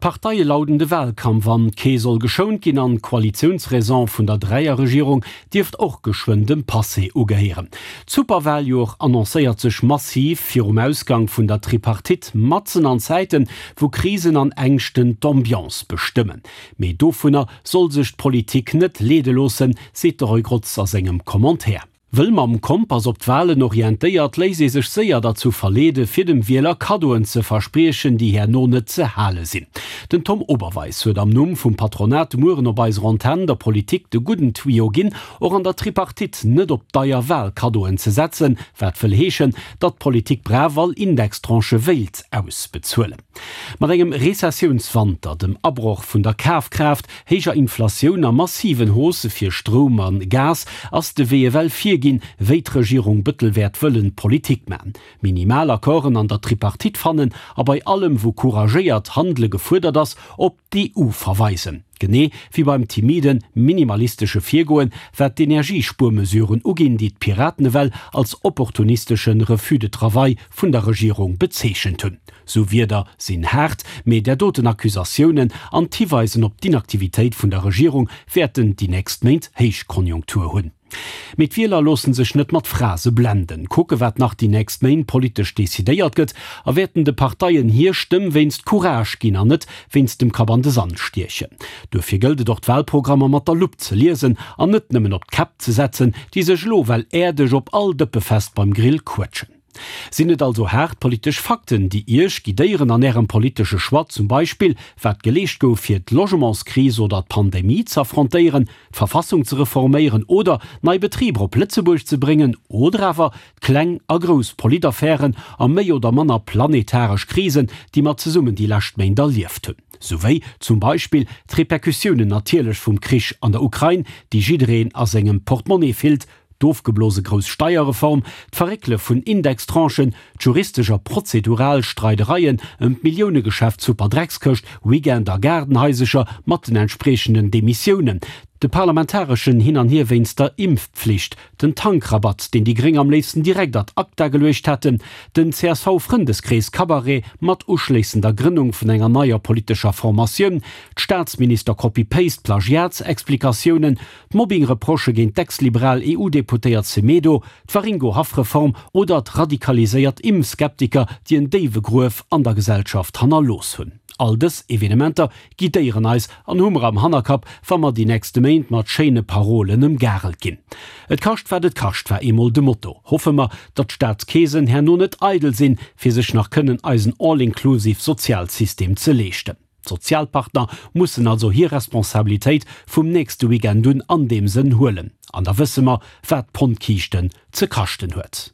D'Parteie lauden de Wahlkampf an, kee soll geschount ginn an d'Koalitiounsraison vun der Dräierregierung dierft och geschwënn dem Passé ugehéieren. D'Superwahljoer annoncéiert sech massiv virum Ausgang vun der Tripartite, matzen an Zäiten, wou Krisen an Ängschten d'Ambiance bestëmmen. Mee dovunner soll sech d'Politik net leede loossen, seet de Roy Grotz a sengem Commentaire. Wëll mam Kompass op d'Walen orientéiert, léisst ee sech séier derzou verleede fir dem Wieler Kaddoen ze verspriechen, déi herno net ze hale sinn. Den Tom Oberweis huet am Numm vum Patronat de Mueren op eiser Antenn der Politik de gudden Tuyau ginn, och an der Tripartite net op deier Walkaddoen ze setzen, wat wëll heeschen, datt d'Politik brav all Indextranchë wéilt ausbezuelen. Mat engem Rezessiounswanter, dem Abroch vun der Kafkraaft, héijer Inflatioun a massiven Haussë fir Stroum a Gas ass de Wee ewell virginn, wéi d'Regierung Bëttel wäert wëllen Politik man. Minimal Accorden an der Tripartite fannen a bei allem wou couragéiert Handele gefuerdert ass, op d'EU verweisen. Genee wéi beim timiden, minimalistesche Virgoen, wat d'Energiespuermesuren uginn, déi d'Piraten ewell als opportunistesche Refus de travail vun der Regierung bezeechent hunn. Sou Wierder sinn haart, mee där doten Accusatiounen an d'Hiweisen op d'Inaktivitéit vun der Regierung wäerten déi nächst Méint Héichkonjunktur hunn. Mee d'Wieler loosse sech net mat Phrase blenden, kucke wat nach déi nächst Méint politesch decidéiert gëtt a wäerten de Parteien hir Stëmm wéinst Courage ginn an net wéinst dem Kapp an de Sand stiechen. Duerfir gëllt et och d'Wahlprogrammer mat der Lupp ze liesen an net nëmmen op d'Käpp ze setzen, déi sech elo well äerdeg op all Dëppefest beim Grill quëtschen. Sinn et also haart politesch Fakten, déi Iech guidéieren an Ärem politesche Choix, zum Beispill wat geleescht gouf fir d'Logementskris oder d'Pandemie z'affrontéieren, d'Verfassung ze reforméieren oder nei Betriber op Lëtzebuerg ze bréngen, oder awer d'kleng a grouss Politaffären a méi oder manner planetaresch Krisen, déi mer zesummen déi lescht Méint erlieft hunn, souwéi zum Beispill d'Repercussiounen natierlech vum Krich an der Ukrain, déi jiddereen a sengem Portemonnaie fillt, D'ofgeblose grouss Steierreform, d'Verréckele vun Indextranchen, d'juristesch a prozedural Streidereien ëm d'Milliounegeschäft Superdreckskëscht, Weekend a Gaardenhaisecher mat den entspriechenden Demissiounen, de parlamentareschen Hin an Hier wéinst der Impfpflicht, den Tankrabatt, deen déi Gréng am léifsten direkt ad acta geluecht hätten, den CSV-Frëndeskrees-Cabaret mat uschléissender Grënnung vun enger neier politescher Formatioun, d'Staatsminister-Copy-Paste-Plagiatsexplikatiounen, D'Mobbing-Reprochë géint d'ex-liberal EU-Deputéiert Semedo, d'Waringo-Haff-Reform oder d'radikaliséiert Impfskeptiker, déi en déiwe Gruef an der Gesellschaft hannerlooss hunn. All dës Evenementer guidéieren eis an hu mer am Hannerkapp, wa mer déi nächste Méint mat schéine Parolen ëmgarelt ginn. Et kascht wat et kascht war eemol de Motto. Hoffe mer, datt d'Staatskeesen herno net eidel sinn, fir sech nach kënnen eisen all-inclusive Sozialsystem ze leeschten. D'Sozialpartner mussen also hir Responsabilitéit vum nächste Weekend un an deem Sënn huelen. An da wësse mer, wat d'Pondkiischten ze kaschten huet.